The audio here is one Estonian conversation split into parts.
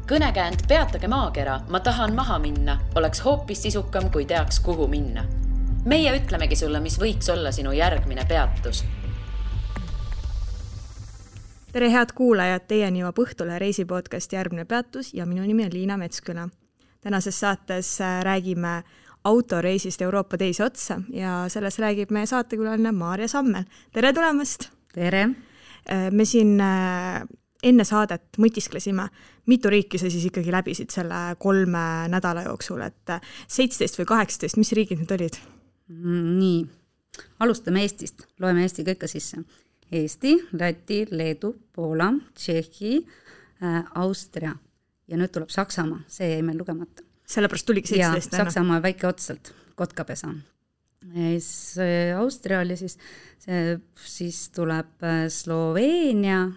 Kõnekäänd Peatage maakera, ma tahan maha minna, oleks hoopis sisukam, kui teaks, kuhu minna. Meie ütlemegi sulle, mis võiks olla sinu järgmine peatus. Tere head kuulajad, teieni jõuab Õhtule reisipodcast Järgmine peatus ja minu nimi on Liina Metsküla. Tänases saates räägime autoreisist Euroopa teise otsa ja selles räägib meie saatekülaline Maarja Sammel. Tere tulemast! Tere! Me siin enne saadet mõtisklesime, mitu riiki sa siis ikkagi läbisid selle 3 nädala jooksul, et 17 või 18, mis riigid need olid? Nii, alustame Eestist, loeme Eesti kõike sisse. Eesti, Läti, Leedu, Poola, Tšehhi, Austria ja nüüd tuleb Saksamaa, see jäi meil lugemata. Sellepärast tuligi 17. Ja Saksamaa väike otsalt, Kotkapesa. Austria oli siis tuleb Sloveenia,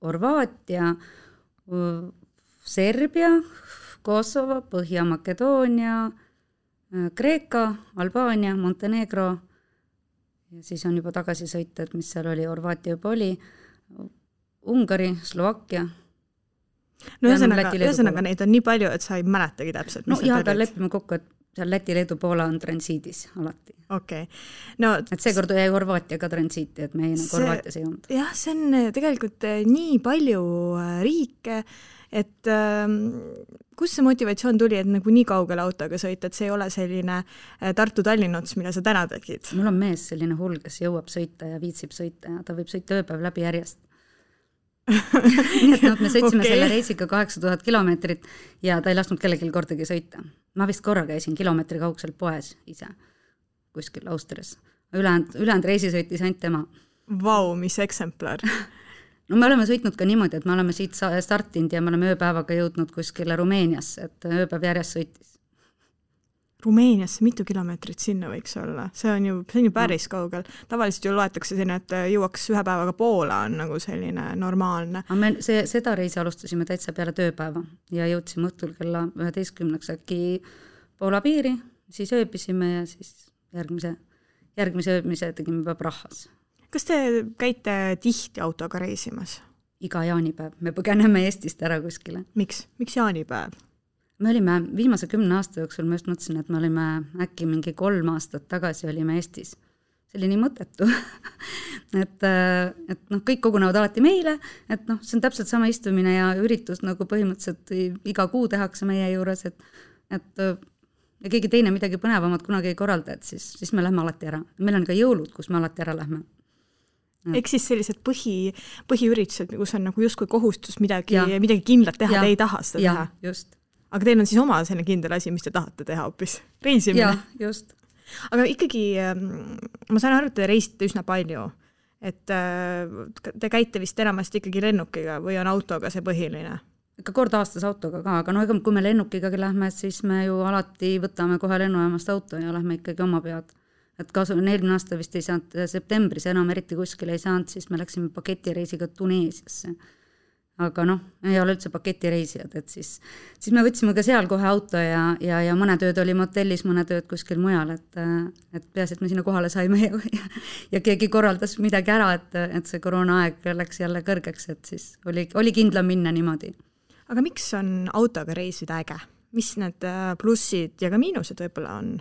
Horvaatia, Serbia, Kosovo, Põhja-Makedoonia, Kreeka, Albaania, Montenegro ja siis on juba tagasi sõita, et mis seal oli, Horvaatia juba oli, Ungari, Slovakkia. No ühesõnaga neid on nii palju, et sa ei mäletagi täpselt. No jah, aga lepime kokku, et seal Läti, Leedu, Poola on transiidis alati. Okay. No, et seekord jäi Horvaatia ka transiiti, et me Horvaatias ei olnud. Jah, see on tegelikult nii palju riike, et kus see motivatsioon tuli, et nagu nii kaugele autoga sõita, et see ei ole selline Tartu-Tallinna ots, mida sa täna tegid? Mul on mees selline hull, kes jõuab sõita ja viitsib sõita ja ta võib sõita ööpäev läbi järjest. Nii et me sõitsime selle reisiga 8000 kilomeetrit ja ta ei lasknud kellelgi kordagi sõita. Ma vist korra käisin kilomeetri kaugselt poes ise kuskil Austrias. Ülejäänud reisi sõitis ainult tema. Vau, mis eksemplar. No me oleme sõitnud ka niimoodi, et me oleme siit startinud ja me oleme ööpäevaga jõudnud kuskile Rumeeniasse, et ööpäev järjest sõitis. Rumeeniasse mitu kilomeetrit sinna võiks olla? See on ju päris kaugel. Tavaliselt ju loetakse sinna, et jõuaks ühe päevaga Poola on nagu selline normaalne. Seda reisi alustasime täitsa peale tööpäeva ja jõudsime õhtul kella 11 äkki Poola piiri, siis ööbisime ja siis järgmise ööbmise tegime juba Prahas. Kas te käite tihti autoga reisimas? Iga jaanipäev. Me põgeneme Eestist ära kuskile. Miks jaanipäev? Me olime viimase 10 aasta jooksul, ma just mõtlesin, et me olime äkki mingi 3 aastat tagasi olime Eestis. See oli nii mõttetu. et kõik kogunevad alati meile, et see on täpselt sama istumine ja üritus nagu põhimõtteliselt iga kuu tehakse meie juures, et ja keegi teine midagi põnevamat kunagi ei korralda, et siis me lähme alati ära. Meil on ka jõulud, kus me alati ära lähme. Eks siis sellised põhiüritused, kus on nagu justkui kohustus midagi kindlat teha, te ei taha seda teha. Just. Aga teil on siis oma selline kindel asi, mis te tahate teha hoopis? Reisimine? Jah, just. Aga ikkagi, ma saan aru, et te reisite üsna palju. Et te käite vist enamasti ikkagi lennukiga või on autoga see põhiline? Ikka kord aastas autoga ka, aga kui me lennukiga lähme, siis me ju alati võtame kohe lennujaamast auto ja lähme ikkagi oma pead. Et eelmine aasta vist ei saanud septembris enam eriti kuskil ei saanud, siis me läksime paketireisiga Tuneesiasse. Aga ei ole üldse paketireisijad, et siis me võtsime ka seal kohe auto ja mõned ööd oli motellis, mõned ööd kuskil mujal, et peaasi, et me sinna kohale saime ja keegi korraldas midagi ära, et see koroonaaeg läks jälle kõrgeks, et siis oli kindlam minna niimoodi. Aga miks on autoga reisida äge? Mis need plussid ja ka miinused võib-olla on?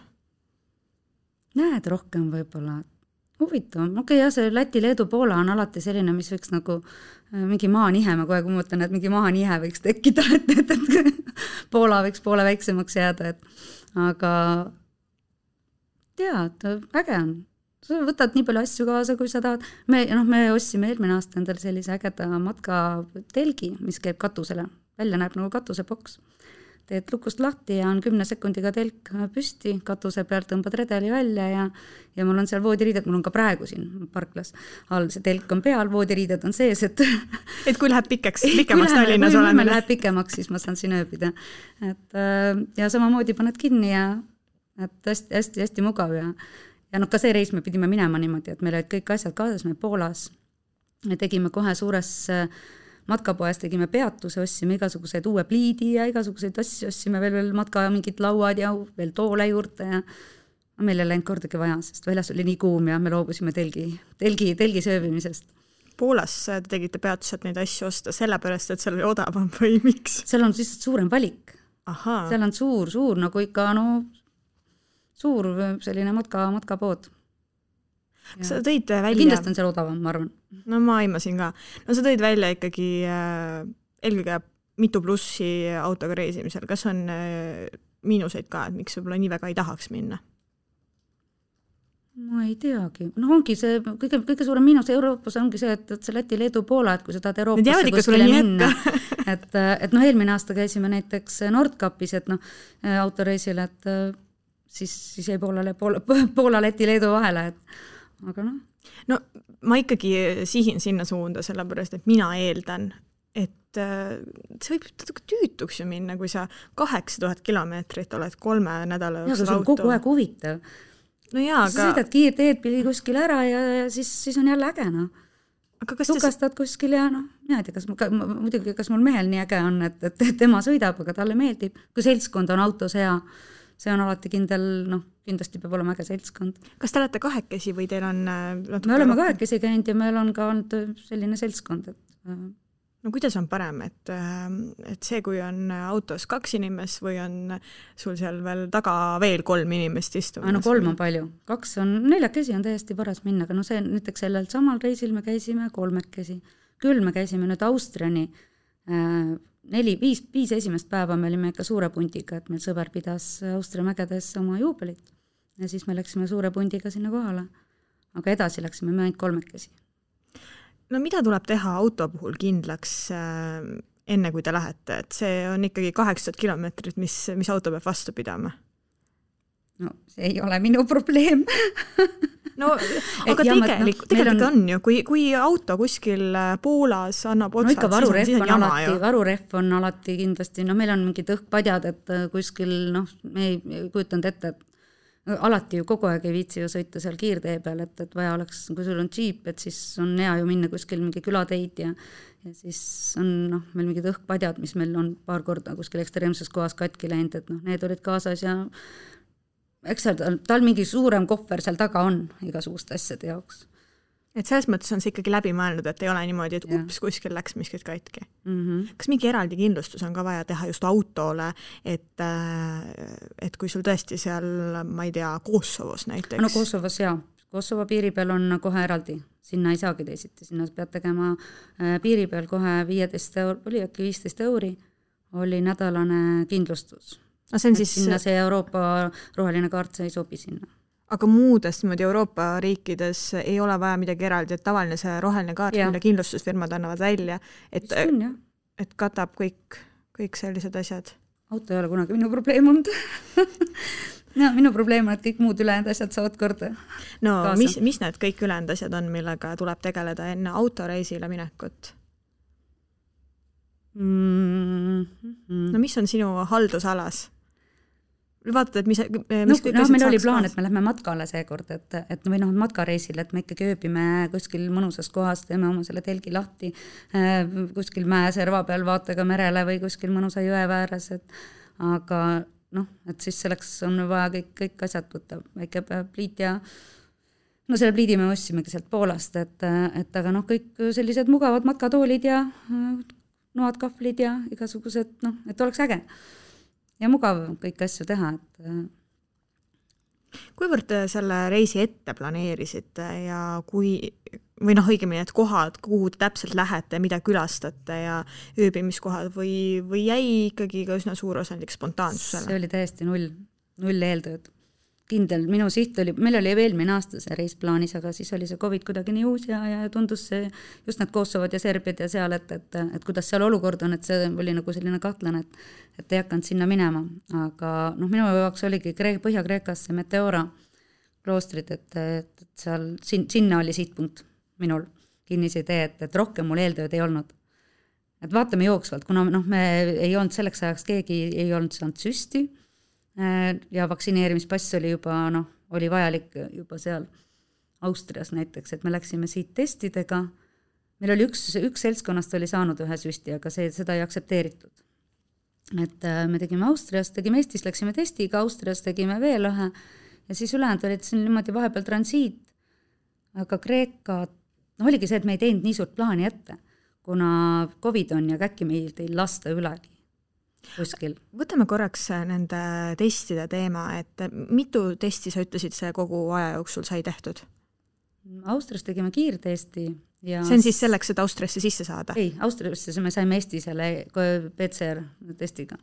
Näed rohkem võib-olla. Huvitav. Ja see Läti, Leedu, Poola on alati selline, mis võiks nagu mingi maanihe, ma kohe mõtlen, et mingi maanihe võiks tekkida, et Poola võiks poole väiksemaks jääda, aga tead, äge on. Sa võtad nii palju asju kaasa, kui sa tahad. Me ostsime eelmine aasta endale sellise ägeda matkatelgi, mis käib katusele. Välja näeb nagu katusepoks. Teed lukust lahti ja on 10 sekundiga telk püsti, katuse pealt tõmbad redeli välja ja mul on seal voodiriided, mul on ka praegu siin parklas all, see telk on peal, voodiriided on sees, et kui läheb pikemaks Tallinnas oleme. Kui läheb pikemaks, siis ma saan siin ööbida. Ja samamoodi paned kinni ja hästi mugav ja ka see reis me pidime minema niimoodi, et meil olid kõik asjad kaasas, me Poolas me tegime kohe suures matkapoes tegime peatuse, ossime igasuguseid uue pliidi ja igasuguseid asju, ossime veel matka mingid lauad ja veel toole juurde ja meil ei läinud kordagi vaja, sest väljas oli nii kuum ja me loobusime telgi sööbimisest. Poolas te tegite peatused neid asju osta sellepärast, et seal oli odavam või miks? Seal on lihtsalt suurem valik. Ahaa. Seal on suur nagu ikka suur selline matkapood. Sa tõid välja... Kindlasti on seal odavam, ma arvan. No ma aimasin ka. No sa tõid välja ikkagi eelkõige mitu plussi autoga reisimisel. Kas on miinuseid ka, et miks võib-olla nii väga ei tahaks minna? Ma ei teagi. No ongi see, kõige suurem miinus Euroopas ongi see, et see Läti, Leedu, Poola, et kui sa tahad Euroopasse kuskile minna, et eelmine aasta käisime näiteks Nordkapis, et autoreisil, et siis jäi Poola, Läti, Leedu vahele, aga No ma ikkagi sihin sinna suunda, sellepärast, et mina eeldan, et see võib tüütuks ju minna, kui sa 8000 kilomeetrit oled 3 nädala jooksul auto. Ja see on kogu aeg huvitav. No jaa, sa sõidad kiirteed pidi kuskil ära ja siis on jälle äge, Tukastad kuskil ja mina ei tea, muidugi kas mul mehel nii äge on, et tema sõidab, aga talle meeldib. Kui seltskond on autos hea, see on alati kindel, kindlasti peab olema äge seltskond. Kas te olete kahekesi või teil on... Me oleme kahekesi käinud ja meil on ka olnud selline seltskond, No kuidas on parem, et see, kui on autos 2 inimest või on sul seal veel taga veel 3 inimest istumas? 3 on palju. 2 on, 4 on täiesti paras minna, aga see näiteks sellel samal reisil me käisime 3. Küll me käisime nüüd Austriani 5 esimest päeva me olime ikka suure pundiga, et meil sõber pidas Austria mägedes oma juubelit ja siis me läksime suure pundiga sinna kohale. Aga edasi läksime me ainult 3. No mida tuleb teha auto puhul kindlaks enne, kui te lähete? Et see on ikkagi 800 kilomeetrit, mis auto peab vastu pidama? No see ei ole minu probleem. No, aga tegelikult on ju, kui auto kuskil Poolas annab otsad, ikka varurehv on alati kindlasti, meil on mingid õhkpadjad, et kuskil, me ei kujutanud ette, et alati ju kogu aeg ei viitsi ju sõita seal kiirtee peal, et vaja oleks, kui sul on džiip, et siis on hea ju minna kuskil mingi külateid ja siis on meil mingid õhkpadjad, mis meil on paar korda kuskil ekstreemses kohas katki läinud, et need olid kaasas ja eks tal mingi suurem kohver seal taga on igasuguste asjade jaoks. Et selles mõttes on see ikkagi läbi mõelnud, et ei ole niimoodi, et kuskil läks miskit katki. Kas mingi eraldi kindlustus on ka vaja teha just autole, et kui sul tõesti seal, ma ei tea, Kosovos näiteks? No Kosovos jaa. Kosovo piiri peal on kohe eraldi. Sinna ei saagi teisiti. Sinna pead tegema piiri peal kohe 15 euri oli nädalane kindlustus. Sinna see Euroopa roheline kaart ei sobi sinna. Aga muudest Euroopa riikides ei ole vaja midagi eraldi, et tavaline see roheline kaart, mille kindlustusfirmad annavad välja, et katab kõik sellised asjad. Auto ei ole kunagi minu probleem olnud. Minu probleem on, et kõik muud ülejäänud asjad saavad korda. No mis need kõik ülejäänud asjad on, millega tuleb tegeleda enne autoreisile minekut? No mis on sinu haldusalas? Vaatad, et mis meil oli plaan, et me lähme matkale seekord, või matkareisil, et me ikkagi ööbime kuskil mõnusas kohas, teeme oma selle telgi lahti, kuskil mäeserva peal vaatega merele või kuskil mõnusa jõe vääres, aga et siis selleks on vaja kõik asjad võtta, väike pliit ja selle pliidi me ossimegi sealt Poolast, et aga kõik sellised mugavad matkatoolid ja noad, kahvlid ja igasugused, et oleks äge. Ja mugav kõik asju teha. Kuivõrd te selle reisi ette planeerisite ja õigemini, et kohad, kuhu te täpselt lähete, mida külastate ja ööbimiskohad või jäi ikkagi ka üsna suur osandik spontaansusele? See oli täiesti null eeltööd. Kindel, minu siht oli, meil oli eelmine aasta see reis plaanis, aga siis oli see COVID kuidagi nii uus ja tundus see just need Kosovod ja Serbiad ja seal, et kuidas seal olukord on, et see oli nagu selline kahtlane, et ei hakanud sinna minema. Aga minu jaoks oligi Põhja-Kreekas see Meteora kloostrid, et seal, sinna oli sihtpunkt minul kinnise idee, et rohkem mul eeltööd ei olnud. Et vaatame jooksvalt, kuna me ei olnud selleks ajaks, keegi ei olnud saanud süsti, ja vaktsineerimispass oli juba, oli vajalik juba seal Austrias näiteks, et me läksime siit testidega. Meil oli üks seltskonnast oli saanud ühe süsti, aga seda ei aktsepteeritud. Et me tegime Austrias, tegime Eestis, läksime testiga, Austrias tegime veel ühe ja siis ülejäänud olid siin niimoodi vahepeal transiit, aga Kreeka, oligi see, et me ei teinud nii suurt plaani ette, kuna COVID on ja äkki meil ei lasta ülegi kuskil. Võtame korraks nende testide teema, et mitu testi sa ütlesid, see kogu aja jooksul sai tehtud? Austrias tegime kiirtesti. Ja see on siis selleks, et Austriasse sisse saada? Ei, Austriasse me saime Eesti selle PCR testiga.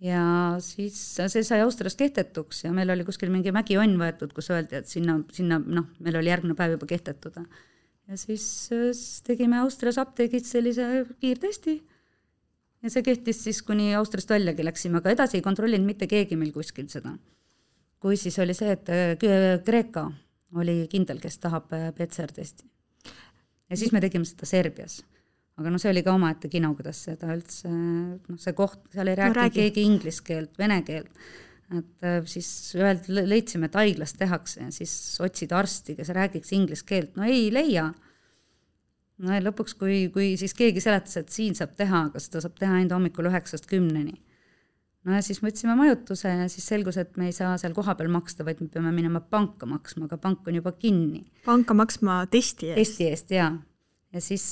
Ja siis see sai Austrias kehtetuks ja meil oli kuskil mingi mägionn võetud, kus öeldi, et sinna meil oli järgmine päev juba kehtetuda. Ja siis tegime Austrias apteegis sellise kiirtesti ja see kehtis siis, kuni Austriast väljagi läksime, aga edasi ei kontrollinud mitte keegi meil kuskil seda. Kui siis oli see, et Kreeka oli kindel, kes tahab PCR-testi. Ja siis me tegime seda Serbias. Aga see oli ka omaette kino, kuidas seda üldse, see koht, seal ei rääkinud keegi inglise keelt, vene keelt. Et siis leidsime, et haiglas tehakse ja siis otsid arsti, kes räägiks inglise keelt. No ei leia. No ja lõpuks, kui siis keegi seletas, et siin saab teha, aga seda saab teha ainult hommikul 9-10. No ja siis võtsime majutuse ja siis selgus, et me ei saa seal kohapeal maksta, vaid me peame minema panka maksma, aga pank on juba kinni. Panka maksma testi eest? Testi eest, jaa. Ja siis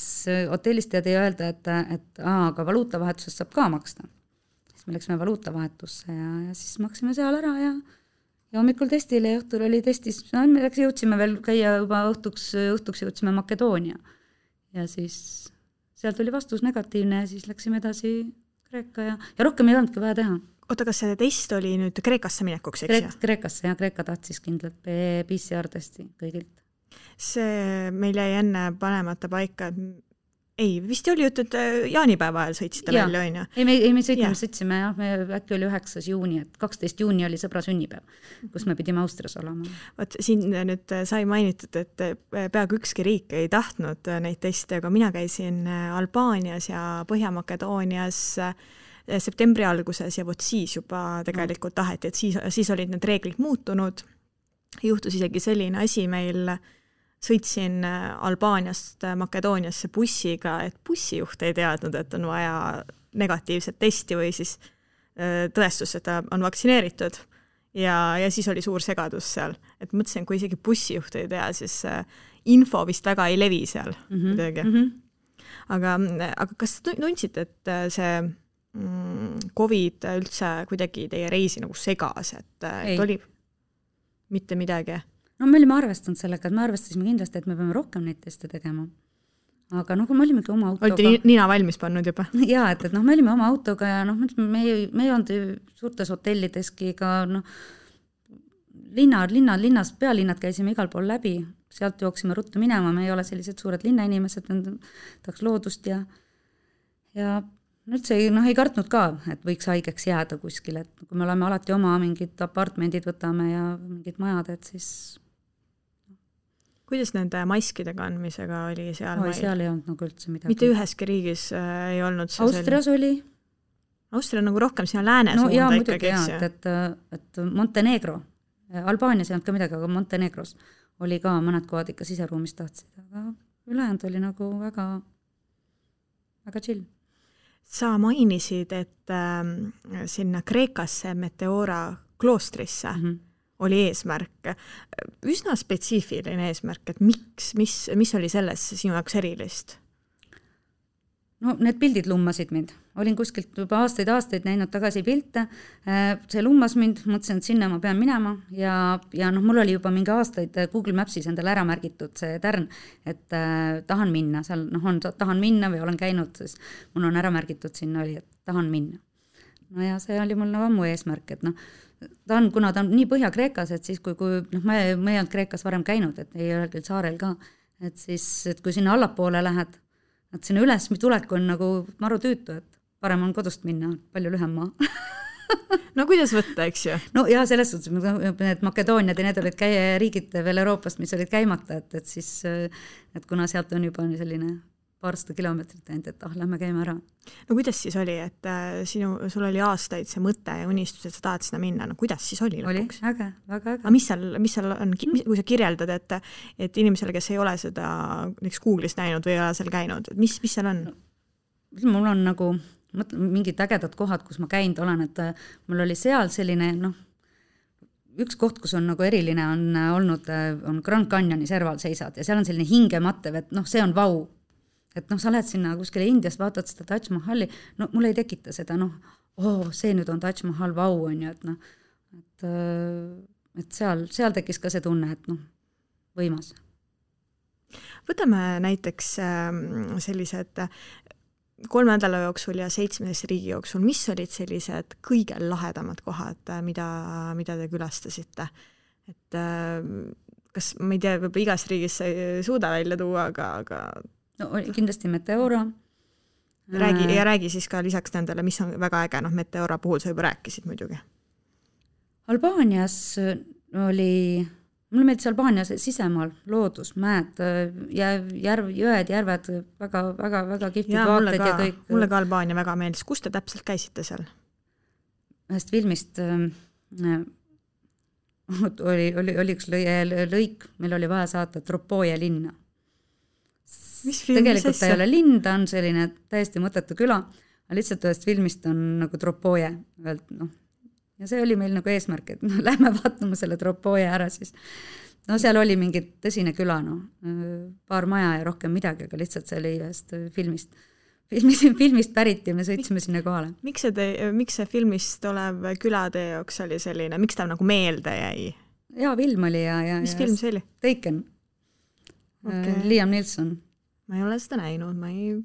hotellist teadi öelda, et aga valuutavahetusest saab ka maksta. Siis me läksime valuutavahetusse ja siis maksime seal ära ja hommikul testile ja õhtul oli testis. Me jõudsime veel käia juba õhtuks jõudsime Makedoonia. Ja siis sealt oli vastus negatiivne ja siis läksime edasi Kreeka ja rohkem ei olnudki vaja teha. Oota, kas see test oli nüüd Kreekasse minekuks, eks? Kreekasse ja Kreeka tahtis kindlalt PCR-testi kõigilt. See meil jäi enne panemata paika, ei, vist oli jutt, et jaanipäeva ajal sõitsite välja, on ju? Ei, me sõitsime, me äkki oli 9. juuni, et 12. juuni oli sõbra sünnipäev, kus me pidime Austrias olema. Võt, siin nüüd sai mainitud, et peaaegu ükski riik ei tahtnud neid teste, aga mina käisin Albaanias ja Põhja-Makedoonias septembri alguses ja siis juba tegelikult taheti, et siis olid need reeglid muutunud. Juhtus isegi selline asi meil, sõitsin Albaaniast Makedooniasse bussiga, et bussijuht ei teadnud, et on vaja negatiivset testi või siis tõestus, et ta on vaktsineeritud. Ja siis oli suur segadus seal. Et mõtlesin, kui isegi bussijuht ei tea, siis info vist väga ei levi seal. Aga kas tundsite, et see COVID üldse kuidagi teie reisi nagu segas, et oli mitte midagi? No me olime arvestanud sellega, et me arvestasime kindlasti, et me peame rohkem neid teste tegema. Aga kui me olimegi oma autoga... Olite nina valmis pannud juba? Jaa, et me olime oma autoga ja me ei olnud suurtes hotellideski ka linnas, pealinnad käisime igal pool läbi, sealt jooksime ruttu minema, me ei ole sellised suured linnainimesed, tahaks loodust ja üldse ei kartnud ka, et võiks haigeks jääda kuskil, et kui me oleme alati oma mingid apartmendid võtame ja mingid majad, et siis... Kuidas nende maskide kandmisega oli seal? Seal ei olnud nagu üldse midagi. Mitte üheski riigis ei olnud see Austrias oli. Austria on nagu rohkem sinna lääne suunda jaa, ikkagi. Et Montenegro, Albaanias ei olnud ka midagi, aga Montenegros oli ka mõned kohad ikka siseruumis tahtsid, aga ülejäänud oli nagu väga, väga chill. Sa mainisid, et sinna Kreekasse Meteora kloostrisse oli eesmärk. Üsna spetsiifiline eesmärk, et mis oli selles sinu jaoks erilist? No need pildid lummasid mind. Olin kuskilt juba aastaid näinud tagasi pilte. See lummas mind, mõtlesin, et sinna ma pean minema ja mul oli juba mingi aastaid Google Mapsis endale ära märgitud see tärn, et tahan minna. Seal tahan minna või olen käinud, siis mul on ära märgitud sinna oli, et tahan minna. No ja see oli mul ammu eesmärk, et kuna ta on nii Põhja-Kreekas, et siis kui me ei olnud Kreekas varem käinud, et ei ole küll saarel ka, et siis, et kui sinna allapoole lähed, et sinna üles tulek on nagu maru tüütu, et parem on kodust minna, palju lühem maa. No kuidas võtta, eks ju? No ja selles suhtes, need Makedooniad ja need olid riigid veel Euroopast, mis olid käimata, et siis, et kuna sealt on juba selline paarsada kilomeetrit ainult, et lähme käime ära. No kuidas siis oli, et sul oli aastaid see mõte ja unistus, et sa tahad sinna minna, no kuidas siis oli lõpuks? Oli, äge, väga äge. Aga mis seal on, kui sa kirjeldad, et inimesele, kes ei ole seda Google'is näinud või ei ole seal käinud, mis seal on? Mul on nagu mingid ägedad kohad, kus ma käinud olen, et mul oli seal selline, üks koht, kus on nagu eriline on olnud, on Grand Canyoni serval seisad ja seal on selline hingemattev, et see on vau. Et sa lähed sinna kuskile Indias, vaatad seda Taj Mahali, mulle ei tekita seda, see nüüd on Taj Mahal, vau on ju, et seal tekkis ka see tunne, et võimas. Võtame näiteks sellised 3 nädala jooksul ja 7 riigi jooksul, mis olid sellised kõige lahedamad kohad, mida te külastasite? Et kas, ma ei tea, võib igas riigis ei suuda välja tuua, aga kindlasti Meteora. Räägi siis ka lisaks nendele, mis on väga äge, Meteora puhul sa juba rääkisid muidugi. Albaanias oli, mulle meeldis Albaanias sisemaal, loodus, mäed, jõed, järved, väga kihvtid vaated ja kõik. Mulle ka Albaania väga meeldis. Kus te täpselt käisite seal? Ühest filmist oli üks lõik, meil oli vaja saata Tropoje linna. Tegelikult ta ei ole linn, ta on selline täiesti mõttetu küla, aga lihtsalt ühest filmist on nagu Tropoje. Ja see oli meil nagu eesmärk, et lähme vaatama selle Tropoje ära siis. Seal oli mingi tõsine küla, paar maja ja rohkem midagi, aga lihtsalt see oli ühest filmist pärit ja me sõitsime sinna kohale. Miks see filmist olev küla teie jaoks oli selline, miks ta nagu meelde jäi? Jaa, film oli ja mis film see oli? Taken. Liam Neeson. Ma ei ole seda näinud, ma ei...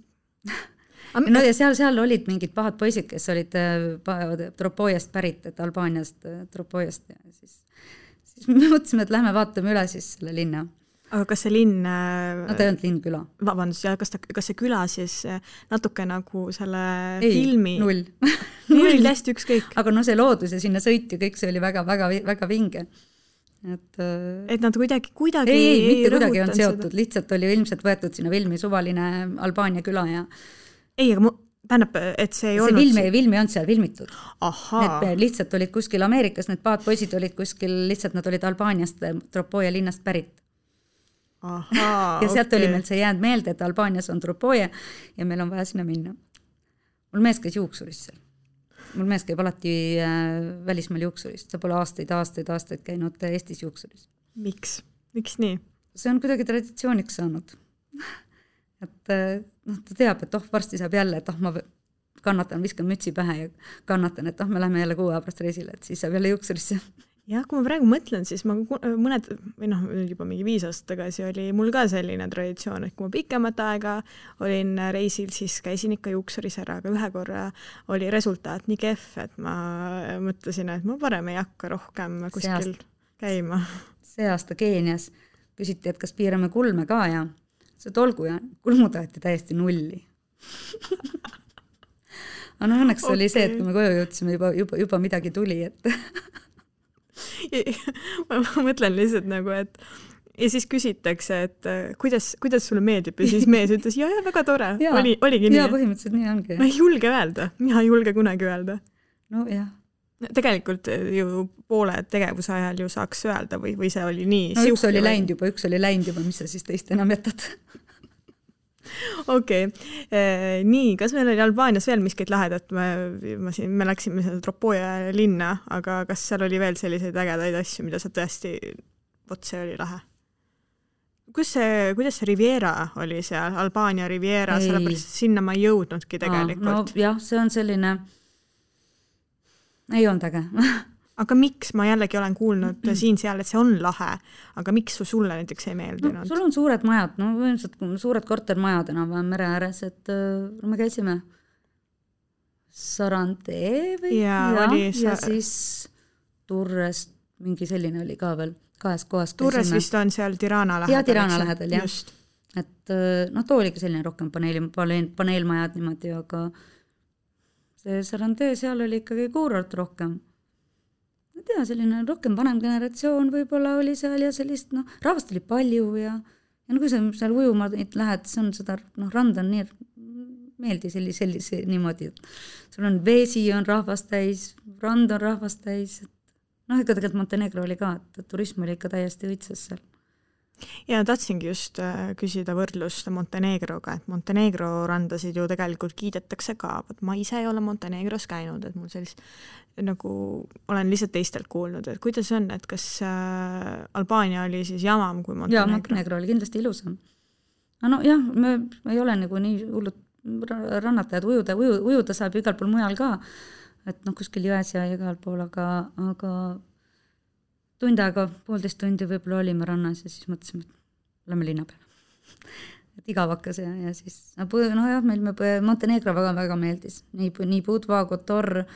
ja seal olid mingid pahad poisid, kes olid Tropojast pärit, et Albaaniast Tropojast ja siis me mõtlesime, et lähme vaatame üle siis selle linna. Aga kas see linn... ta ei olnud linn küla. Vabandust, ja kas see küla siis natuke nagu selle filmi... Null. Null, hästi ükskõik. Aga see loodus ja sinna sõit ja kõik see oli väga vinge. Et nad kuidagi ei mitte kuidagi on seotud, lihtsalt oli ilmselt võetud sinna filmi suvaline Albaania küla ja ei, aga tähendab, et see ei olnud... See filmi on seal filmitud. Need lihtsalt olid kuskil Ameerikas, need paatpoisid olid kuskil, lihtsalt nad olid Albaaniast, Tropoje linnast pärit. Ja sealt oli meil see jäänud meelde, et Albaanias on Tropoje ja meil on vaja sinna minna. Mul mees käis juuksuris seal. Mul mees käib alati välismaal juuksurist. Ta pole aastaid käinud Eestis juuksuris. Miks? Miks nii? See on kuidagi traditsiooniks saanud. Et ta teab, et varsti saab jälle, et ma kannatan, viskan mütsi pähe ja kannatan, et me lähme jälle 6 aja pärast reisile, et siis saab jälle juuksurisse. Jah, kui ma praegu mõtlen, siis ma juba mingi 5 aastat tagasi oli mul ka selline traditsioon, et kui ma pikemat aega olin reisil, siis käisin ikka juuksuris ära, aga ühe korra oli resultaat nii kehv, et ma mõtlesin, et ma parem ei hakka rohkem kuskil käima. See aasta Keenias küsiti, et kas piirame kulme ka ja see tolgu ja kulmu taheti täiesti nulli. Aga õnneks oli see, et kui me koju jõudsime, juba midagi tuli, et ma mõtlen lihtsalt nagu, et ja siis küsitakse, et kuidas sulle meeldib ja siis mees ütles, ja väga tore, oligi nii. Ja põhimõtteliselt nii ongi. Ma ei julge öelda, mina ei julge kunagi öelda. No jah. Tegelikult ju poole tegevuse ajal ju saaks öelda või see oli nii. No üks oli läinud juba, mis sa siis teist enam jätad? Okei. Nii, kas meil oli Albaanias veel miskit lahedat? Me läksime seda Tropoje linna, aga kas seal oli veel selliseid ägedaid asju, mida sa tõesti, see oli lahe? Kuidas see Riviera oli seal? Albaania Riviera, sellepärast sinna ma ei jõudnudki tegelikult. Jah, see on selline... Ei olnud äge. Aga miks? Ma jällegi olen kuulnud siin-seal, et see on lahe, aga miks sulle näiteks ei meeldinud? Sul on suured majad, suured kortermajad enam mere ääres, et me käisime Sarandee või? Ja siis Turrest, mingi selline oli ka veel 2 kohas. Turres vist on seal Tirana lähedal. Ja Tirana lähedal, jah. Et too oligi selline rohkem paneelmajad niimoodi, aga see Sarandee seal oli ikkagi kuurort rohkem. Ma tea, selline rohkem vanem generatsioon võib-olla oli seal ja sellist, rahvast oli palju ja kui sa seal ujuma lähed, see on seda, rand on nii meeldi sellise niimoodi, et sul on vesi on rahvast täis, rand on rahvast täis, ikka tegelikult Montenegro oli ka, et turism oli ikka täiesti õitsas seal. Ja tahtsingi just küsida võrdlust Montenegroga, et Montenegro randasid ju tegelikult kiidetakse ka, ma ise ei ole Montenegros käinud, et mul sellist nagu olen lihtsalt teistelt kuulnud, et kuidas on, et kas Albaania oli siis jamam kui Montenegro? Jaa, Montenegro oli kindlasti ilusam. No jah, me ei ole nagu nii hullud rannatajad, ujuda saab igal pool mujal ka, et kuskil jões ja igal pool, aga tund aega, 1,5 tundi võib-olla olime rannas ja siis mõtlesime, et oleme linna peal. Et igavakas ja siis, jah, meil Montenegro väga meeldis. Nii Budva, Kotor,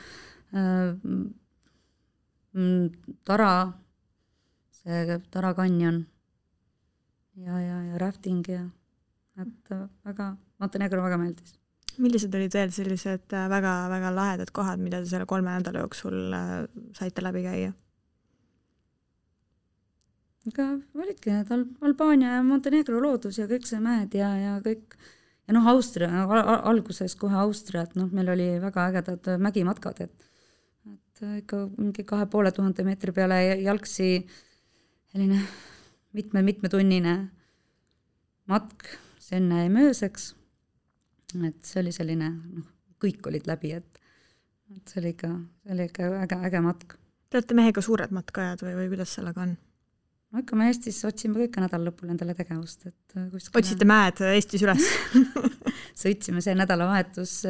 Tara kanjon ja rafting ja et Montenegro väga meeldis. Millised olid veel sellised väga lahedad kohad, mida te selle 3 nädala jooksul saite läbi käia? Aga olidki need Albaania ja Montenegro loodus ja kõik see mäed ja kõik. Ja Austria, alguses kohe Austria, et meil oli väga ägedad mägimatkad, et ikka mingi 2500 meetri peale jalgsi selline mitmetunnine matk Senne ja Mööseks. Et see oli selline, kõik olid läbi, et see oli ikka äge matk. Te olete mehega suured matkajad või kuidas sellega on? Ikka me Eestis otsime kõik nädal lõpul endale tegevust. Otsite mäed Eestis üles? Sõitsime see nädalavahetus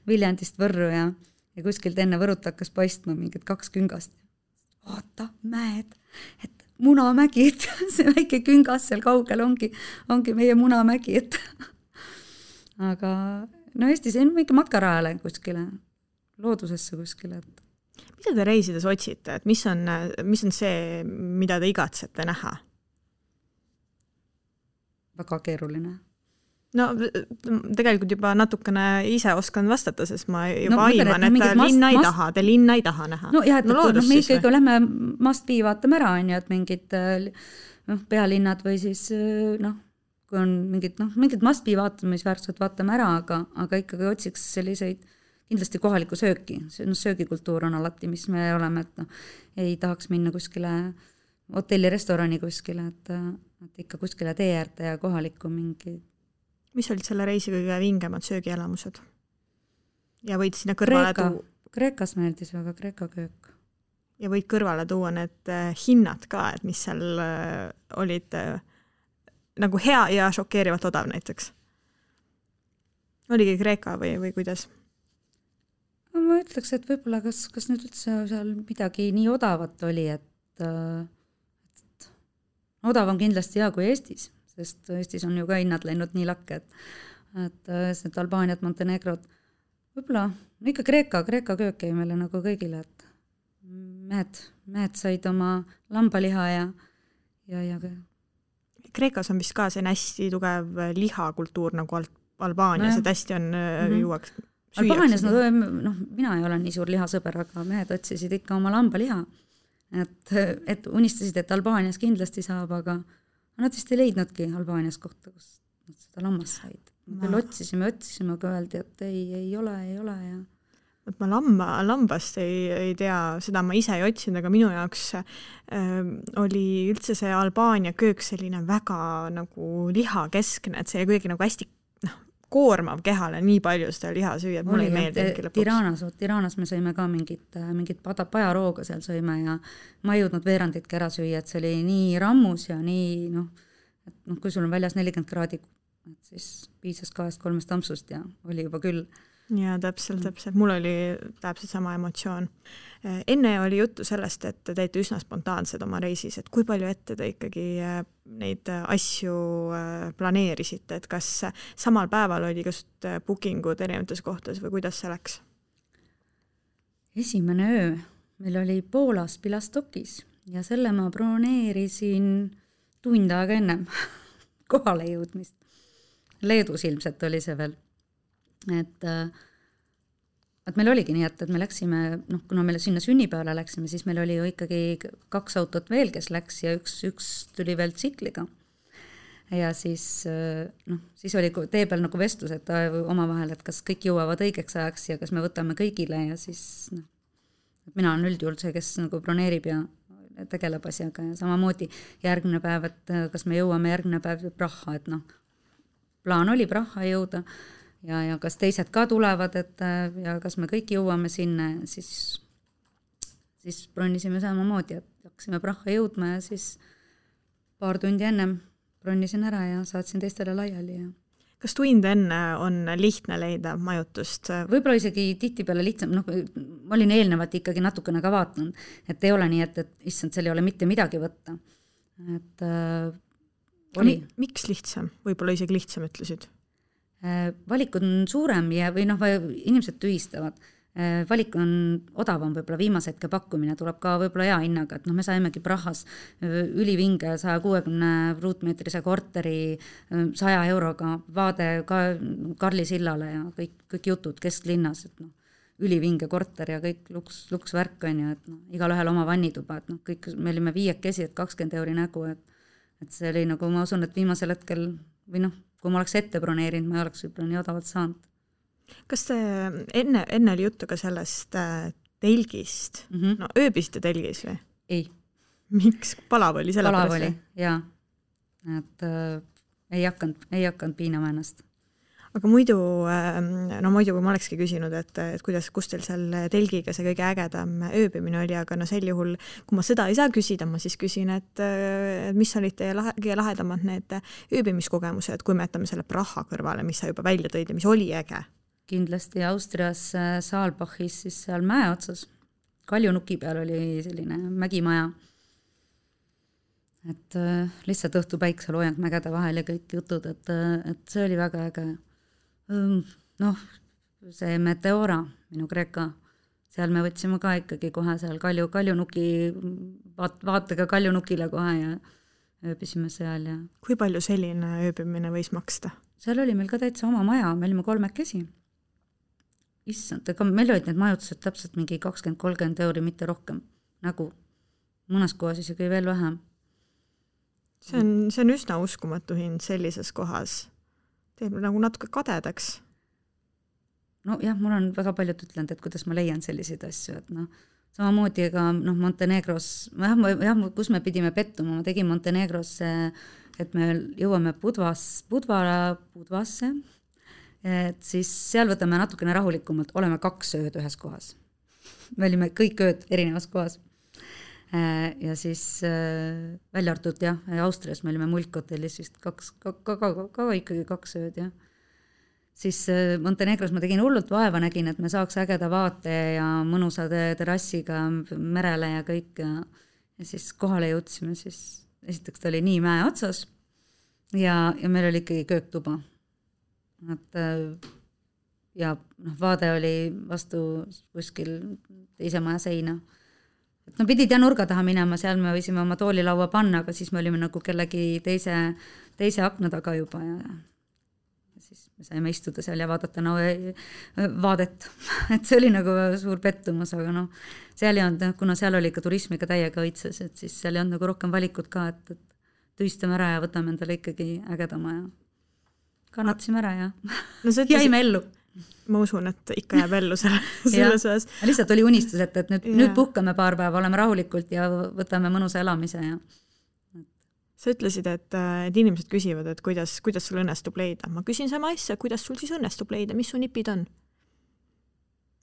Viljandist Võrru ja kuskilt enne Võrut hakkas paistma mingid 2 küngast. Vaata, mäed, et Munamägi, et see väike küngas seal kaugel ongi meie Munamägi, et aga Eestis on mingi matkarajale kuskile, loodusesse kuskile, et mida te reisides otsite, et mis on see, mida te igatsete näha? Väga keeruline. No tegelikult juba natukene ise oskan vastata, sest ma juba aiman, et te linna ei taha näha. No jah, et me ikkagi lähme must-be vaatame ära, et mingid pealinnad või siis kui on mingid must-be vaatamisväärtused vaatame ära, aga ikkagi otsiks selliseid kindlasti kohalikku sööki. Söögikultuur on alati, mis me oleme, et ei tahaks minna kuskile hotelli-restorani kuskile, et ikka kuskile tee äärde ja kohalikku mingi. Mis olid selle reisi kõige vingemad söögielamused? Ja võid sinna kõrvale tuua? Kreekas meeldis väga, Kreeka köök. Ja võid kõrvale tuua need hinnad ka, et mis seal olid nagu hea ja šokeerivalt odav näiteks. Oligi Kreeka või kuidas? Ma ütleks, et võib-olla kas nüüd üldse seal midagi nii odavat oli, et odav on kindlasti hea kui Eestis, sest Eestis on ju ka hinnad läinud nii lakke, et see Albaaniat, Montenegrot, võib-olla ikka Kreeka köök jäi meile nagu kõigile, et mehed said oma lambaliha ja Kreekas on vist ka see hästi tugev lihakultuur nagu Albaanias, et hästi on juuaks Albaanias, mina ei ole nii suur lihasõber, aga mehed otsisid ikka oma lambaliha, et unistasid, et Albaanias kindlasti saab, aga nad vist ei leidnudki Albaanias kohta, kus nad seda lammas said. Küll otsisime, aga öeldi, et ei ole ja ma lambast ei tea, seda ma ise ei otsinud, aga minu jaoks oli üldse see Albaania köök selline väga nagu lihakeskne, et see kuidagi nagu hästi koormav kehale nii palju seda liha süüa, et mulle ei meeldi Tiranas me sõime ka mingit pajarooga seal sõime ja ma ei jõudnud veeranditki ära süüa, et see oli nii rammus ja nii, kui sul on väljas 40 kraadi, et siis piisas 2-3 tampsust ja oli juba küll. Ja täpselt. Mul oli täpselt sama emotsioon. Enne oli juttu sellest, et te teete üsna spontaansed oma reisis, et kui palju ette te ikkagi neid asju planeerisite, et kas samal päeval oli just bookingud erinevates kohtades või kuidas see läks? Esimene öö meil oli Poolas Pilastokis ja selle ma broneerisin tund aega ennem kohale jõudmist. Leedus ilmselt oli see veel. Et meil oligi nii, et me läksime, kuna me sinna sünnipäevale läksime, siis meil oli ju ikkagi 2 autot veel, kes läks ja üks tuli veel tsikliga. Ja siis oli tee peal nagu vestlus, et omavahel, et kas kõik jõuavad õigeks ajaks ja kas me võtame kõigile ja siis mina olen üldjuhul see, kes nagu broneerib ja tegeleb asjaga ja samamoodi järgmine päev, et kas me jõuame järgmine päev Praha, et plaan oli Praha jõuda ja kas teised ka tulevad, et ja kas me kõik jõuame sinna, siis bronnisime samamoodi, et hakkasime Praha jõudma ja siis paar tundi ennem bronnisin ära ja saatsin teistele laiali ja kas tund enne on lihtne leida majutust? Võib-olla isegi tihtipeale lihtsam, ma olin eelnevalt ikkagi natukene ka vaatanud, et ei ole nii, et issand, seal ei ole mitte midagi võtta. Et oli. Miks lihtsam? Võib-olla isegi lihtsam ütlesid? Valik on suurem ja või inimesed tühistavad. Valik on odavam, võib-olla viimase hetke pakkumine tuleb ka võib-olla hea hinnaga, et me saimegi Prahas ülivinge 160 ruutmeetrise korteri 100 euroga vaade ka Karli sillale ja kõik jutud kesklinnas, et ülivinge korter ja kõik luksvärk on ju, et igal ühel oma vannituba, et kõik, me olime 5 et 20 euri nägu, et see oli nagu, ma usun, et viimasel hetkel või kui ma oleks ette broneerinud, ma ei oleks võib-olla nii odavalt saanud. Kas te enne oli juttu ka sellest telgist? Ööbisite telgis või? Ei. Miks? Palav oli selle pärast? Palav oli, jaa. Et ei hakanud piinama ennast. Aga muidu, kui ma olekski küsinud, et kust teil seal telgiga see kõige ägedam ööbimine oli, aga sel juhul, kui ma seda ei saa küsida, ma siis küsin, et mis olid teie kõige lahedamad need ööbimiskogemused, kui me jätame selle Praha kõrvale, mis sa juba välja tõid ja mis oli äge? Kindlasti Austrias Saalbachis siis seal mäe otsas. Kaljunuki peal oli selline mägimaja. Et lihtsalt õhtu päikseloojang mägede vahel ja kõik jutud, et see oli väga äge. See Meteora, minu Kreeka, seal me võtsime ka ikkagi kohe seal Kaljunuki, vaatega Kaljunukile kohe ja ööbisime seal. Ja. Kui palju selline ööbimine võis maksta? Seal oli meil ka täitsa oma maja, me olime 3. Issand, aga meil olid need majutused täpselt mingi 20-30 euri, mitte rohkem. Nagu mõnes kohas isegi veel vähem. See on üsna uskumatu hind sellises kohas. Teeb nagu natuke kadedaks. Jah, mul on väga paljud ütlenud, et kuidas ma leian selliseid asju, et samamoodi ka Montenegros, kus me pidime pettuma, ma tegin Montenegros, et me jõuame Budvasse, et siis seal võtame natukene rahulikumalt, oleme 2 ööd ühes kohas. Me olime kõik ööd erinevas kohas. Ja siis välja arvatud, Austrias me olime Mulkhotellis vist ka ikkagi 2 ööd, jah. Siis Montenegros ma tegin hullult vaeva, nägin, et me saaks ägeda vaate ja mõnusa terrassiga merele ja kõik ja siis kohale jõudsime, siis esiteks ta oli nii mäe otsas ja meil oli ikkagi kööktuba. Ja vaade oli vastu kuskil teise maja seina. Pidid nurga taha minema, seal me võisime oma toolilaua panna, aga siis me olime nagu kellegi teise akna taga juba ja siis me saime istuda seal ja vaadata vaadet. Et see oli nagu suur pettumus, aga seal ei olnud, kuna seal oli ka turismiga täiega õitses, et siis seal ei olnud nagu rohkem valikut ka, et tühistame ära ja võtame endale ikkagi ägedama ja kannatasime ära ja jäime ellu. Ma usun, et ikka jääb ellu selles osas. Lihtsalt oli unistus, et nüüd puhkame paar päeva, oleme rahulikult ja võtame mõnusa elamise. Ja. Sa ütlesid, et inimesed küsivad, et kuidas sul õnnestub leida. Ma küsin sama asja, kuidas sul siis õnnestub leida, mis su nipid on?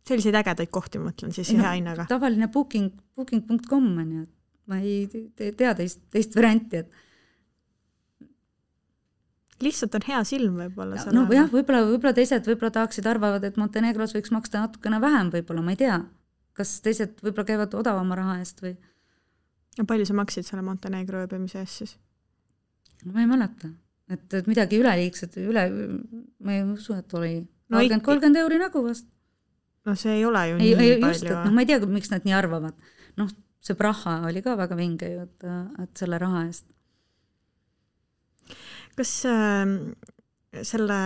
Selliseid ägedaid kohti, ma mõtlen siis hea hinnaga. Tavaline booking.com on ju, ma ei tea teist varianti, et lihtsalt on hea silm võib-olla. Võib-olla teised tahaksid arvavad, et Montenegros võiks maksta natukene vähem võib-olla, ma ei tea. Kas teised võib-olla käivad odavama raha eest või? Ja palju sa maksid selle Montenegro ööbimise eest siis? Ma ei mäleta. Et midagi üleliigset, ma ei usu, et oli 30 euri nägu vast. See ei ole ju nii palju. Ma ei tea, miks nad nii arvavad. See Praha oli ka väga vinge ju, et selle raha eest. Kas selle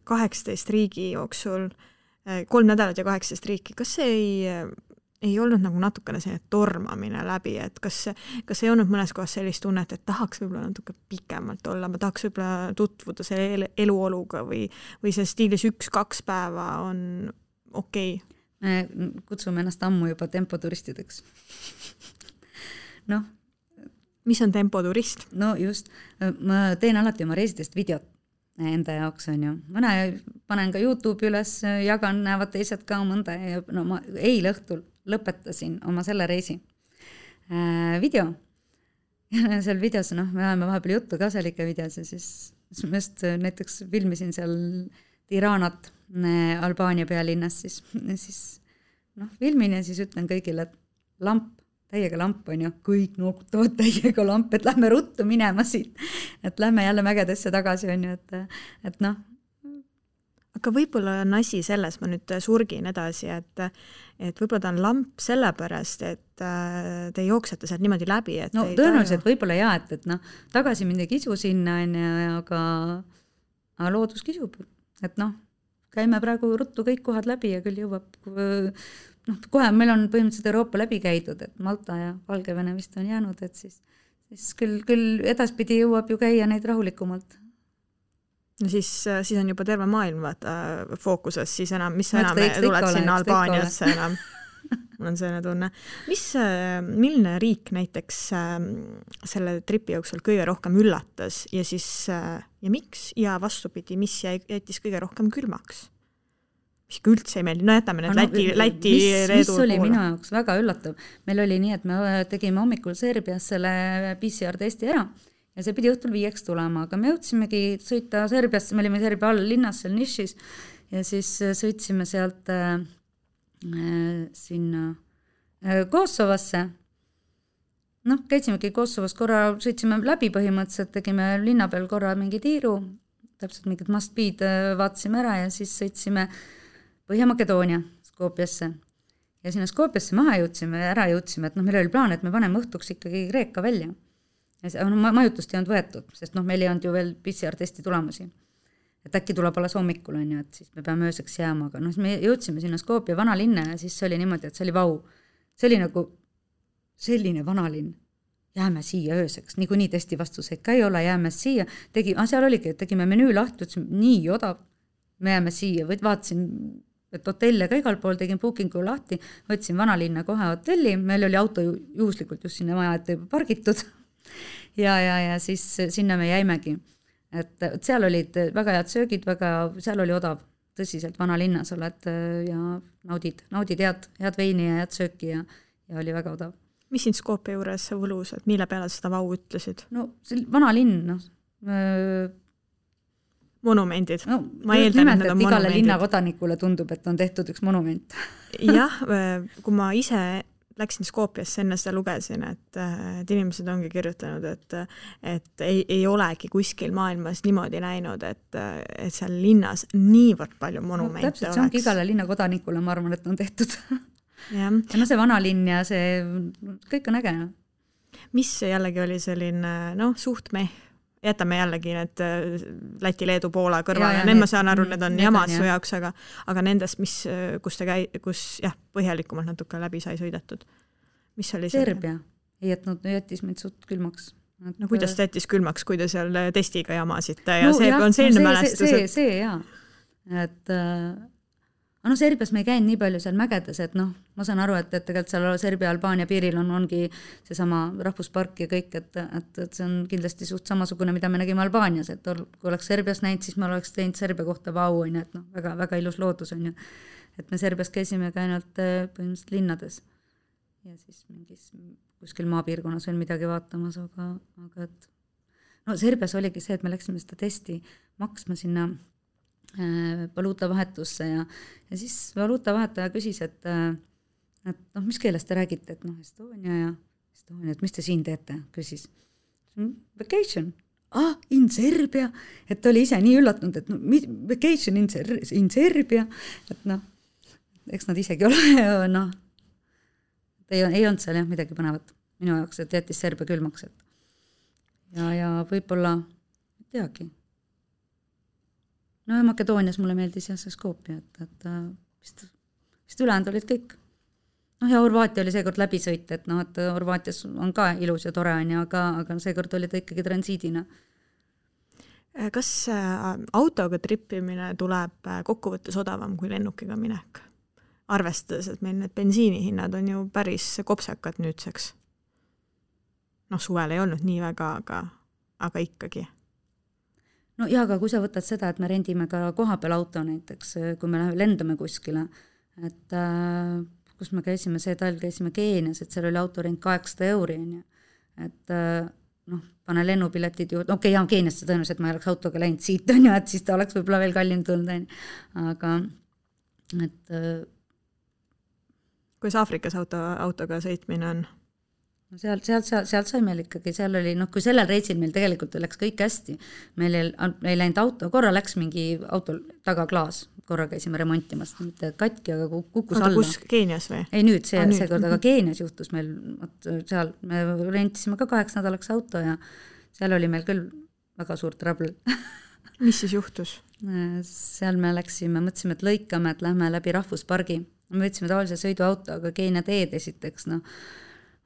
18 riigi jooksul, 3 nädalat ja 18 riiki, kas see ei olnud nagu natukene see tormamine läbi, et kas ei olnud mõnes kohas sellist tunnet, et tahaks võib-olla natuke pikemalt olla, ma tahaks võib-olla tutvuda selle eluoluga või see stiilis 1-2 päeva on okei? Me kutsume ennast ammu juba tempoturistideks. noh. Mis on tempoturist? No just, ma teen alati oma reisidest videot enda jaoks on ju. Mõne panen ka YouTube'i üles, jagan, näevad teised ka mõnda ja no ma eile õhtul lõpetasin oma selle reisi video. Ja seal videos, noh, me oleme vahepeal juttu ka seal ikka videos ja siis ma just näiteks filmisin seal Tiranat Albaania pealinnas, siis noh, filmin ja siis ütlen kõigile, et lamp, täiega lamp on ju, kõik noogutavad täiega lamp, et lähme ruttu minema siit, et lähme jälle mägedesse tagasi on ju, et noh. Aga võib-olla on asi selles, ma nüüd surgin edasi, et võib-olla ta on lamp sellepärast, et te jooksete sealt niimoodi läbi. Et no tõenäoliselt võib-olla jah, et noh, tagasi mind ei kisu sinna, aga loodus kisub, et noh, käime praegu ruttu kõik kohad läbi ja küll jõuab, noh, kohe meil on põhimõtteliselt Euroopa läbi käidud, et Malta ja Valgevene vist on jäänud, et siis küll edaspidi jõuab ju käia neid rahulikumalt. No siis on juba terve maailm fookuses, siis enam, mis sa enam tuled sinna Albaaniasse enam. Mul on selline tunne. Milline riik näiteks selle tripi jooksul kõige rohkem üllatas ja siis ja miks ja vastupidi, mis jättis kõige rohkem külmaks? Mis üldse ei meeldi, no jätame need Läti mis oli poole. Minu jaoks väga üllatav. Meil oli nii, et me tegime hommikul Serbias selle PCR-testi ära ja see pidi õhtul 5 tulema, aga me jõudsimegi sõita Serbiasse, me olime Serbia all linnas seal nišis ja siis sõitsime sealt sinna Kosovosse. Noh, käitsimegi Kosovos korra, sõitsime läbi põhimõtteliselt, tegime linna peal korra mingi tiiru, täpselt mingid must-bead vaatasime ära ja siis sõitsime Põhja-Makedoonia Skopjasse. Ja sinna Skopjasse maha jõudsime, et noh, meil oli plaan, et me paneme õhtuks ikkagi Kreeka välja. Ja majutust ei olnud võetud, sest noh, meil ei olnud ju veel PCR-testi tulemusi. Et äkki tuleb alles hommikul, on ju, et siis me peame ööseks jääma, aga noh, me jõudsime sinna Skopja vanalinna ja siis see oli niimoodi, et see oli vau. See oli nagu selline vanalinn. Jääme siia ööseks, niikuinii testi vastuseid ka ei ole, jääme siia. Seal oligi, et tegime menüü lahti, ütlesime, nii odav, me jääme siia, vaatasin et hotelle ka igal pool, tegin bookingu lahti, võtsin vanalinna kohe hotelli, meil oli auto juhuslikult just sinna maja ette pargitud ja siis sinna me jäimegi. Et seal olid väga head söögid, seal oli odav, tõsiselt vanalinnas oled ja naudid head veini ja head sööki ja oli väga odav. Mis siin Skopje juures võlus, et mille peale seda vau ütlesid? No vanalinn, noh, monumendid. No, ma eeldan, et need on igale linnakodanikule tundub, et on tehtud üks monument. Jah, kui ma ise läksin Skopjasse, enne seda lugesin, et inimesed ongi kirjutanud, et ei olegi kuskil maailmas niimoodi näinud, et seal linnas niivõrd palju monumente oleks. Täpselt, see ongi igale linnakodanikule, ma arvan, et on tehtud. Ja no see vanalinn ja see, kõik on äge. Mis jällegi oli selline, suht jätame jällegi need Läti, Leedu, Poola kõrval ja need ma saan aru, need on jamad su jaoks, aga nendest, kus põhjalikumalt natuke läbi sai sõidetud. Mis oli Serbia jättis meid suht külmaks. No kuidas ta jättis külmaks, kui te seal testiga jamasite ja see on selline mälestus? See jaa. Et Serbias me ei käinud nii palju seal mägedes, et ma saan aru, et tegelikult seal Serbia-Albaania piiril ongi seesama rahvuspark ja kõik, et see on kindlasti suht samasugune, mida me nägime Albaanias, et kui oleks Serbias näinud, siis me oleks teinud Serbia kohta vau, et väga, väga ilus loodus on ju. Et me Serbias käisime ka ainult põhimõtteliselt linnades ja siis mingis kuskil maapiirkonnas veel midagi vaatamas, aga Serbias oligi see, et me läksime seda testi maksma sinna valuutavahetusse ja siis valuutavahetaja küsis, et mis keeles te räägite, et Estonia, et mis te siin teete, küsis. Vacation. In Serbia, et oli ise nii üllatunud, et vacation in Serbia, et eks nad isegi ole, ei olnud seal midagi põnevat minu jaoks, et jättis Serbia külmaks, ja võib-olla teagi. No Makedoonias mulle meeldis see Skopje, et vist ülejäänud olid kõik. Ja Horvaatia oli seekord läbisõit, et Horvaatias on ka ilus ja tore on, aga seekord oli ta ikkagi transiidina. Kas autoga trippimine tuleb kokkuvõttes odavam kui lennukiga minek? Arvestades, et meil need bensiinihinnad on ju päris kopsakad nüüdseks. suvel ei olnud nii väga, aga ikkagi. No ja, aga kui sa võtad seda, et me rendime ka kohapeal auto näiteks, kui me lendame kuskile, et kus me käisime, see talv käisime Keenias, et seal oli autorent 800 €, et pane lennupiletid ju, okei, ja Keeniasse tõenäoliselt ma ei oleks autoga läinud siit, et siis ta oleks võib-olla veel kallim tulnud, aga et kuidas Aafrikas autoga sõitmine on? No sealt sai meil ikkagi, seal oli, kui sellel reisil meil tegelikult läks kõik hästi, meil ei läinud auto, korra läks mingi auto tagaklaas, korra käisime remontimas, mitte katki, aga kukkus alla. Kus, Keenias või? Ei nüüd, see kord, aga Keenias juhtus meil, seal me rentisime ka 8 nädalaks auto ja seal oli meil küll väga suur trouble. Mis siis juhtus? Seal me mõtlesime, et lõikame, et lähme läbi rahvuspargi. Me võtsime tavalise sõiduauto, aga Keenia teed esiteks,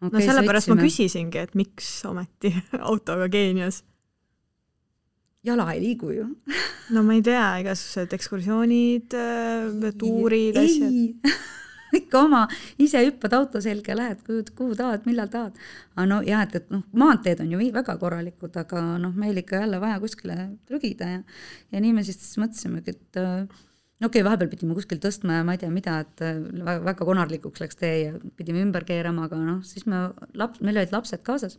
Okay, sellepärast ma küsisingi, et miks ometi autoga Keenias? Jala ei liigu ju. No ma ei tea, igasugused ekskursioonid, tuurid, asjad. Ikka oma, ise hüppad auto selge, lähed, kuhu tahad, millal tahad. Aga jah, et maanteed on ju väga korralikud, aga meil ikka jälle vaja kuskile trügida ja nii me siis mõtlesimegi, et okei, vahepeal pidime kuskil tõstma ja ma ei tea mida, et väga konarlikuks läks tee ja pidime ümber keerama, aga siis meil olid lapsed kaasas,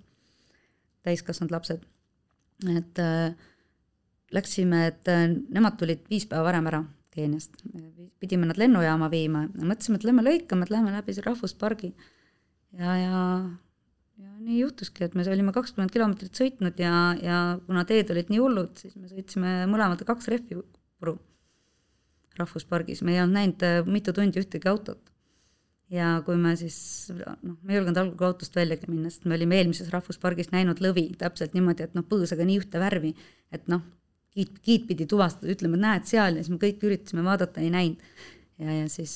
täiskasvanud lapsed, et läksime, et nemad tulid 5 päeva varem ära Keeniast, pidime nad lennujaama viima ja mõtlesime, et lähme lõikame, et lähme läbi see rahvuspargi ja nii juhtuski, et me olime 20 kilomeetrit sõitnud ja kuna teed olid nii hullud, siis me sõitsime mõlemad 2 rehvi puru rahvuspargis, me ei olnud näinud mitu tundi ühtegi autot. Ja kui me siis, me ei julgenud algul autost väljagi minna, sest me olime eelmises rahvuspargis näinud lõvi täpselt niimoodi, et põõsaga nii ühte värvi, et kiit pidi tuvastada, ütleme, et näed seal ja siis me kõik üritasime vaadata, ei näinud. Ja siis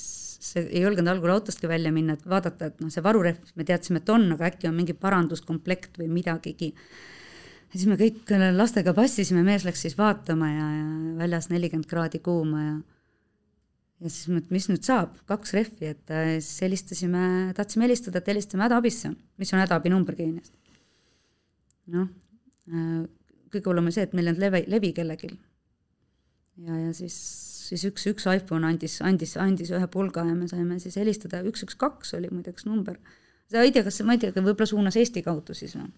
ei julgenud algul autostki välja minna, et vaadata, et see varurehv, me teadsime, et on, aga äkki on mingi paranduskomplekt või midagigi. Ja siis me kõik lastega passisime, mees läks siis vaatama ja väljas 40 kraadi kuuma ja siis mis nüüd saab? 2 rehvi, et siis tahtsime helistada, et helistame hädaabisse, mis on hädaabinumber Keeniast. Kõige hullem on see, et meil on levi kellelgi. Ja siis üks iPhone andis ühe pulga ja me saime siis helistada, 112 oli muideks number. Ma ei tea, võib-olla suunas Eesti kaudu siis või?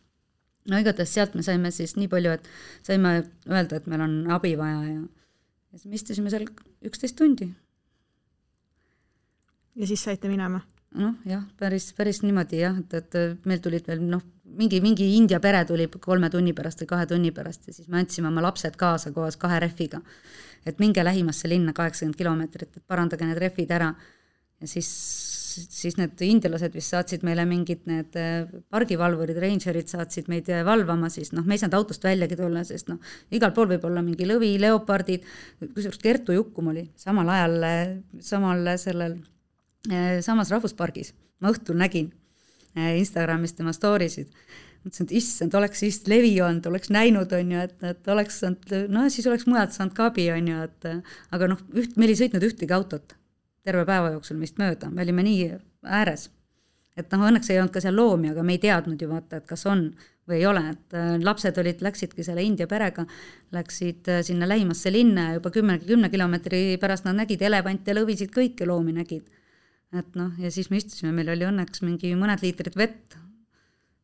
Igatahes sealt me saime siis nii palju, et saime öelda, et meil on abi vaja ja siis me istusime seal 11 tundi. Ja siis saite minema? Jah, päris niimoodi jah, et meil tulid veel mingi India pere tuli 3 tunni pärast või 2 tunni pärast ja siis me andsime oma lapsed kaasa koos 2 rehviga, et minge lähimasse linna 80 kilomeetrit, et parandage need rehvid ära ja siis need indialased vist saatsid meile mingid need pargivalvurid, rangerid saatsid meid valvama, siis me ei saanud autost väljagi tulla, sest igal pool võib olla mingi lõvi, leopardid, kusjuures Kertu Jukkum oli samal ajal samas rahvuspargis. Ma õhtul nägin Instagramis tema stories'id. Mõtlesin, et issand, oleks siis levi olnud, oleks näinud, on ju, et oleks saanud, siis oleks mujalt saanud ka abi, on ju, aga meil ei sõitnud ühtegi autot terve päeva jooksul meist mööda, me olime nii ääres, et õnneks ei olnud ka seal loomi, aga me ei teadnud ju vaata, et kas on või ei ole, et lapsed läksidki selle India perega, läksid sinna lähimasse linna ja juba 10 kilomeetri pärast nad nägid elevante, lõvisid, kõiki loomi nägid. Et ja siis me istusime, meil oli õnneks mingi mõned liitrid vett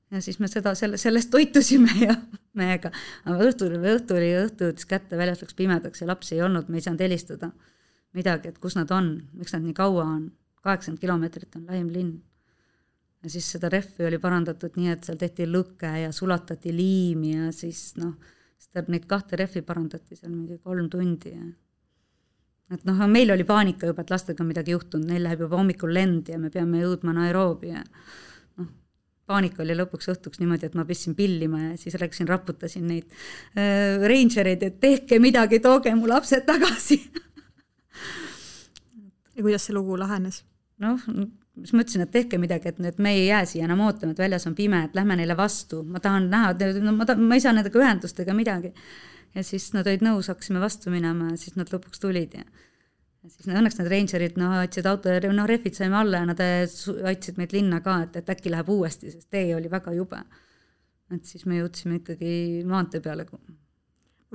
ja siis me sellest toitusime ja meiega. Aga õhtu jõudis kätte, väljas läks pimedaks ja lapsi ei olnud, me ei saanud helistada midagi, et kus nad on, miks nad nii kaua on, 80 kilomeetrit on lähim linn. Ja siis seda rehvi oli parandatud nii, et seal tehti lõke ja sulatati liimi ja siis neid 2 rehvi parandati seal mingi 3 tundi ja et meil oli paanika juba, et lastega midagi juhtunud, neil läheb juba hommikul lend ja me peame jõudma Nairobi ja paanika oli lõpuks õhtuks niimoodi, et ma pistsin pillima ja siis läksin, raputasin neid rangereid, et tehke midagi, tooge mu lapsed tagasi. Ja kuidas see lugu lahenes? Siis ma ütlesin, et tehke midagi, et me ei jää siia enam ootama, et väljas on pime, et lähme neile vastu, ma tahan näha, ma ei saa nendega ühendust ega midagi. Ja siis nad olid nõus, hakkasime vastu minema ja siis nad lõpuks tulid ja siis õnneks need rangerid aitsid auto ja rehvid saime alla ja nad aitsid meid linna ka, et äkki läheb uuesti, sest tee oli väga jube. et siis me jõudsime ikkagi maantee peale.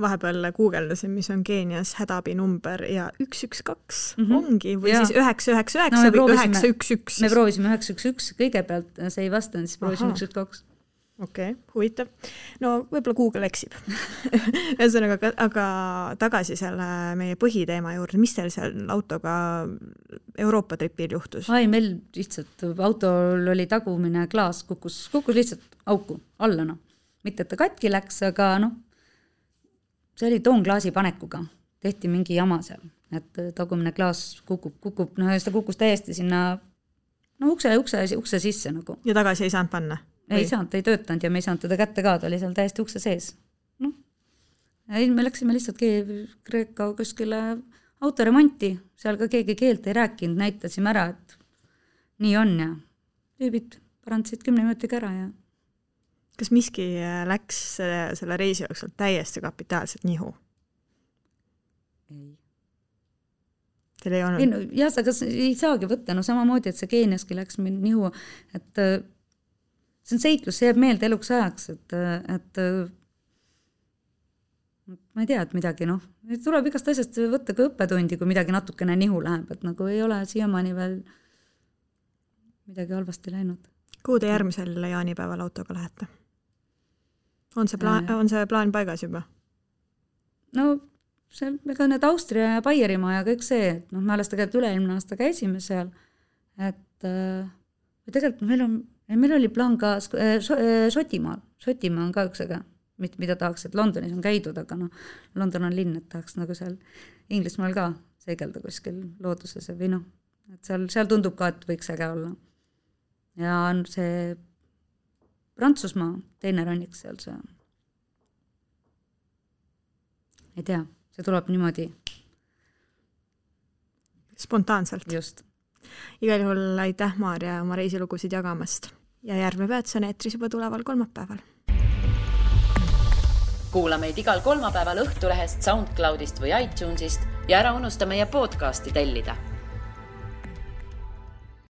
Vahepeal guugeldasin, mis on Keenias hädaabinumber ja 112 ongi, või siis 999 või 911. Me proovisime 911 kõigepealt, see ei vastanud, siis proovisime 112. Okei, huvitav. No võib-olla Google eksib. Ühesõnaga, aga tagasi selle meie põhiteema juurde, mis teil seal autoga Euroopa tripil juhtus? Meil lihtsalt autol oli tagumine klaas, kukkus lihtsalt auku alla. Mitte, et ta katki läks, aga see oli toonklaasi panekuga. Tehti mingi jama seal, et tagumine klaas kukub, ta kukkus täiesti sinna ukse sisse . Ja tagasi ei saanud panna? Ei saanud, ta ei töötanud ja me ei saanud teda kätte ka, ta oli seal täiesti ukse sees. Me läksime lihtsalt Kreeka kuskile autoremonti, seal ka keegi keelt ei rääkinud, näitasime ära, et nii on ja tüübid parandasid 10 minutiga ära. Ja... Kas miski läks selle reisi jooksul täiesti kapitaalselt nihu? Ei. Teil ei olnud? Aga ei saagi võtta, samamoodi, et see Keeniaski läks nihu, et see on seiklus, see jääb meelde eluks ajaks, et ma ei tea, et midagi, tuleb igast asjast võtta ka õppetundi, kui midagi natukene nihu läheb, et ei ole siiamaani veel midagi halvasti läinud. Kuhu te järgmisel jaanipäeval autoga lähete? On see plaan paigas juba? Ega need Austria ja Baierimaa ja kõik see, et me alles tegelikult üle-eelmine aasta käisime seal, et tegelikult meil oli plaan ka Šotimaal. Šotimaa on ka üks äge, mida tahaks, et Londonis on käidud, aga London on linn, et tahaks seal Inglismaal ka seegelda kuskil looduses või et seal tundub ka, et võiks äge olla. Ja on see Prantsusmaa teine rannik seal see. Ei tea, see tuleb niimoodi. Spontaanselt. Just. Igal juhul aitäh, Maarja, oma reisilugusid jagamast. Ja järgmine peatus on eetris juba tuleval kolmapäeval. Kuula meid igal kolmapäeval Õhtulehest, SoundCloudist või iTunesist ja ära unusta meie podcasti tellida.